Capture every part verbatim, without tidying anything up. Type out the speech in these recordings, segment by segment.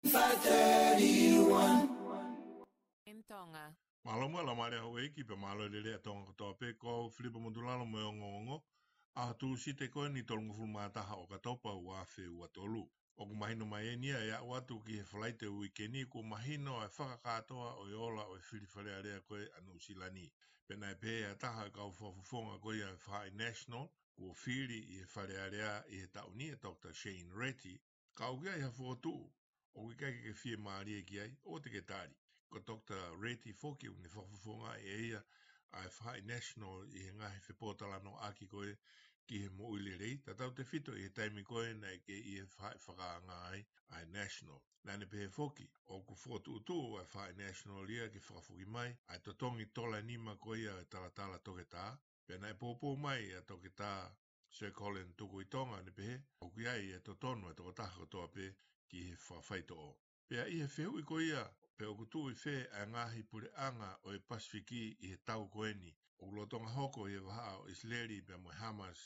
five thirty-one. In Tonga. Mālō muʻa Laumālie Houʻeiki pea mālō e lelei ʻa Tonga kotoa pē, ko au Filipa Motulalo mo e ongoongo. ʻAho Tūsite ko eni tolungofulu mā taha ʻo ʻOkatopa ua afe ua tolu. ʻOku mahino mai eni ia ʻe aʻu atu ki he Falaite uike ni kuo mahino ʻa e fakakātoa ʻo e ola ʻo e fili Fale Alea ko ē ʻa Nuʻusila ni. Pea naʻe pehē ʻe ha taha ʻo e kau fakafofonga ko ia ʻo e Faʻahi National, kuo fili ʻi he Fale Alea ʻi he taʻu ni ʻa Doctor Shane Reti, ka ʻoku ʻi ai ha fokotuʻu ʻoku ʻikai ke ke fiemālie ki ai, ʻoua te ke tali. Ko Doctor Reti foki ʻoku ne fakafofongaʻi ʻe ia ʻa e Faʻahi National ʻi he ngaahi fepōtalanoaʻaki ko ē ki he moʻui lelei, tatau tefito ʻi he taimi ko ē naʻe kei ʻi he faʻahi fakaanga ai ʻa e National. Naʻa ne pehē foki, ʻoku fokotuʻutuʻu ʻa e Faʻahi National ia ke fakafoki mai ʻa e totongi tola nima ko ia ʻo e talatala toketā, pea naʻe poupou mai ʻa Toketā Sir Colin Tukuitonga ʻo ne pehē, ʻoku ʻi ai e totonu ʻa e tokotaha kotoa pē ki he fakafaitoʻo. Pea ʻi he fehuʻi ko ia, pe ʻoku tuʻu ʻi fē ʻa e ngaahi puleʻanga ʻo e Pasifiki ʻi he tau ko eni, ʻoku lolotonga hoko ʻi he vahaʻa ʻo ʻIsileli pea mo e Hamas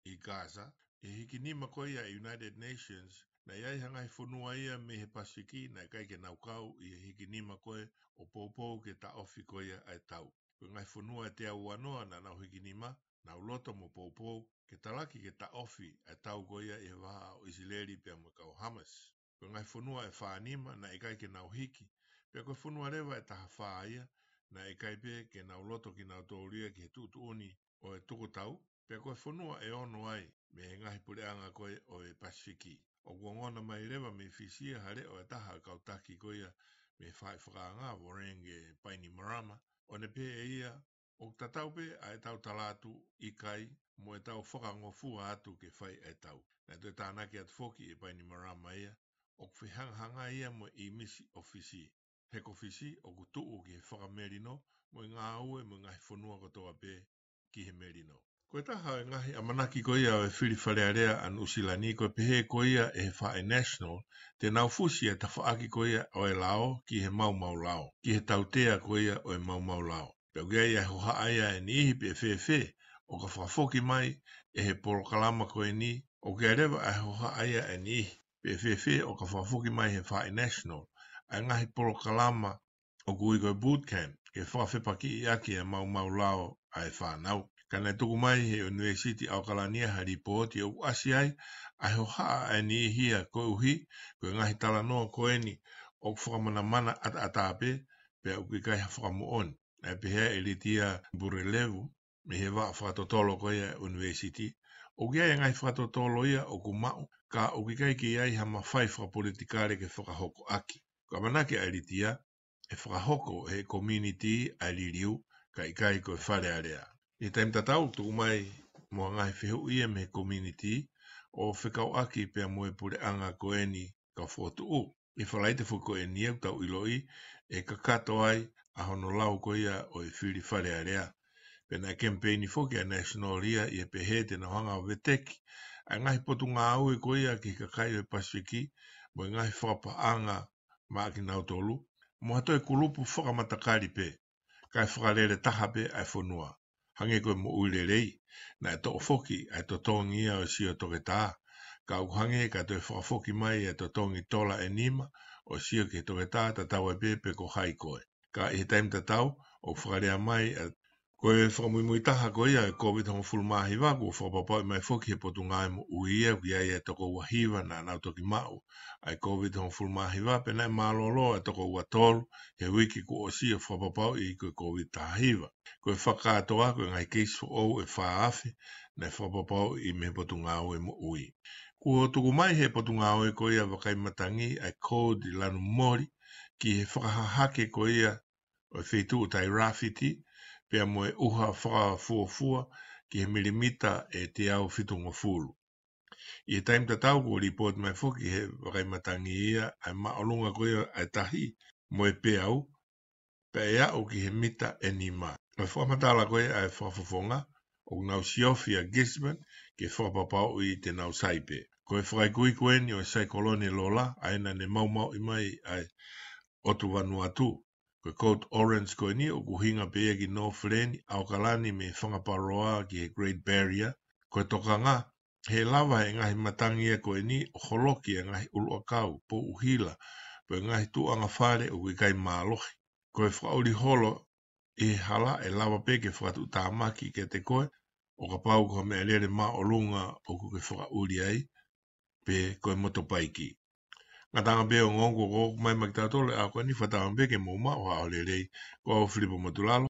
ʻi Gaza, ʻi he hikinima ko ia ʻa e United Nations, naʻe ʻi ai ha ngaahi fonua ia mei he Pasifiki naʻe ʻikai ke nau kau ʻi he hikinima ko ē ʻo poupou ke taʻofi ko ia ʻa e tau. Ko e ngaahi fonua ʻe teau uanoa naʻa nau hikinima, nau loto mo poupou ke talaki ke taʻofi ʻa e tau ko ia ʻi he vahaʻa ʻo ʻIsileli pea mo e kau Hamas. Ko e ngaahi fonua ʻe fānima naʻe ʻikai ke nau hiki, pea ko e fonua leva ʻe tahafā ia naʻe ʻikai pē ke nau loto kinautolu ia ki he tuʻutuʻuni ʻo e tukutau, pea ko e fonua ʻe ono ai mei he ngaahi puleʻanga ko ē ʻo e Pasifiki. ʻOku ongona mai leva mei Fisi ia ha leʻo ʻa e taha ʻo e kau taki ko ia mei he faʻahi fakaanga, Voreqe Bainimarama, ʻo ne pehē ʻe ia, ʻoku tatau pē ʻa ʻetau tala atu ʻikai mo ʻetau fakangofua atu ke fai ʻa e tau. Naʻe toe tānaki atu foki ʻe Bainimarama ia, ʻoku fehangahangai ia mo e ʻīmisi ʻo Fisi. He ko Fisi ʻoku tuʻu ki he fakamelino mo e ngāue mo e ngaahi fonua kotoa pē ki he melino. Ko e taha ʻo e ngaahi ʻamanaki ko ia ʻo e fili Fale Alea ʻa Nuʻusila ni ko e pehē ko ia ʻe he Faʻahi National, te nau fusi ʻa e tafaʻaki ko ia ʻo e lao ki he maumau lao, ki he tautea ko ia ʻo e maumau lao. Pea ʻoku ʻi ai ʻa e hohaʻa ia ʻa e niʻihi pe ʻe fēfē ʻo ka fakafoki mai ʻe he polokalama ko eni, ʻoku ʻi ai leva ʻa e hohaʻa ia ʻa e niʻihi pe ʻe fēfē ʻo ka fakafoki mai he Faʻahi National ʻa e ngaahi polokalama ʻoku ui ko e boot camp, ke fakafepakiʻi ʻaki ʻa e maumau lao ʻa e fānau. Ka naʻe tuku mai he ʻUnivēsiti ʻAokalani ha lipooti ʻoku ʻasi ai ʻa e hohaʻa ʻa e niʻihi ia koeʻuhi ko e ngaahi talanoa ko eni ʻoku fakamanamana ʻataʻatā pē, pea ʻoku ʻikai ha fakamoʻoni. Naʻe pehē ʻe Litia Burelevu, mei he vaʻa fakatotolo ko ia ʻa e ʻUnivēsiti, ʻoku ʻi ai e ngaahi fakatotolo ia ʻoku maʻu, ka ʻoku ʻikai ke ʻi ai ha mafai fakapolitikale ke fakahoko ʻaki. Ko e ʻamanaki ʻa Litia, ʻe fakahoko ʻe he community ʻa e liliu, ka ʻikai ko e Fale Alea. ʻI he taimi tatau, tuku mai mo ha ngaahi fehuʻi ia mei he community ʻo fekauʻaki pea mo e puleʻanga ko eni kau fokotuʻu. ʻI he Falaite foki ko eni ʻoku tau ʻiloʻi ʻe kakato ai ʻa hono lau ko ia ʻo e fili Fale Alea. Pea naʻe kemipeini foki ʻa e National ia ʻi he pehē te nau hanga ʻo veteki ʻa e ngaahi potungāue ko ia ki he kakai ʻo e Pasifiki mo e ngaahi fakapaʻanga maʻa kinautolu, mo ha toe kulupu fakamatakali pē, kae fakalele taha pē ʻa e fonua. Hangē ko e moʻui lelei, naʻe toʻo foki ʻa e totongi ia ʻo e sio toketā, ka ʻoku hangē ka toe fakafoki mai ʻa e totongi tola ʻe nima ʻo e sio ki he toketā, tatau ai pē pe ko hai koe. Ka ʻi he taimi tatau, ʻoku fakalea mai ʻa, ko e fakamuimui taha ko ia ʻo e Covid hongofulu mā hiva, kuo fakapapauʻi mai foki he Potungāue Moʻui ia, ʻoku ʻi ai ʻa e toko ua hiva naʻa nau toki maʻu ʻa e Covid hongofulu mā hiva, pea naʻe mālōlō ʻa e toko ua tolu he uike kuo ʻosi ʻo fakapapauʻi ko e Covid taha hiva. Ko e fakakātoa, ko e ngaahi keisi foʻou ʻe fā afe naʻe fakapapauʻi mei he Potungāue Moʻui. Kuo tuku mai he Potungāue ko ia Vakai Matangi ʻa e kōti lanu moli ki he fakahahake ko ia ʻo e feituʻu Tairāfiti, pea mo e ʻuha fakafuofua ki he milimita ʻe teau fitungofulu. ʻI he taimi tatau kuo lipooti mai foki he Vakai Matangi ia ʻa e māʻolunga ko ia ʻa e tahi mo e peau, pea ʻe aʻu ki he mita ʻe nima. Ko e fakamatala ko ia ʻa e fakafofonga, ʻoku nau siofi ʻa Gisborne ke fakapapauʻi te nau sai pē. Ko e fakaikuiku eni ʻo e saikolone Lola, ʻa ia naʻa ne maumauʻi mai ʻa e ʻotu Vanuatu. Ko e Code Orange ko eni ʻoku ʻuhinga pē ia ki Northland, ʻAokalani mei Fanga Paroa ki he Great Barrier. Ko e tokanga, he lava he ngaahi matangi ia ko eni ʻo holoki e ngaahi ʻuluʻakau, pou ʻuhila, pe ngaahi tuʻuʻanga fale ʻoku ʻikai mālohi. Ko e fakaʻuli holo ʻi he hala ʻe lava pē ke fakatuʻutāmaki kiate koe, ʻo kapau ko ha meʻalele māʻolunga ʻoku ke fakaʻuli ai, pe ko e motopaiki. Ngataʻanga pē ongoongo ko ʻoku mai ma kitautolu ʻa ko eni, fakatauange pē ke mou maʻu ha ʻaho lelei. Ko au Filipo Motulalo,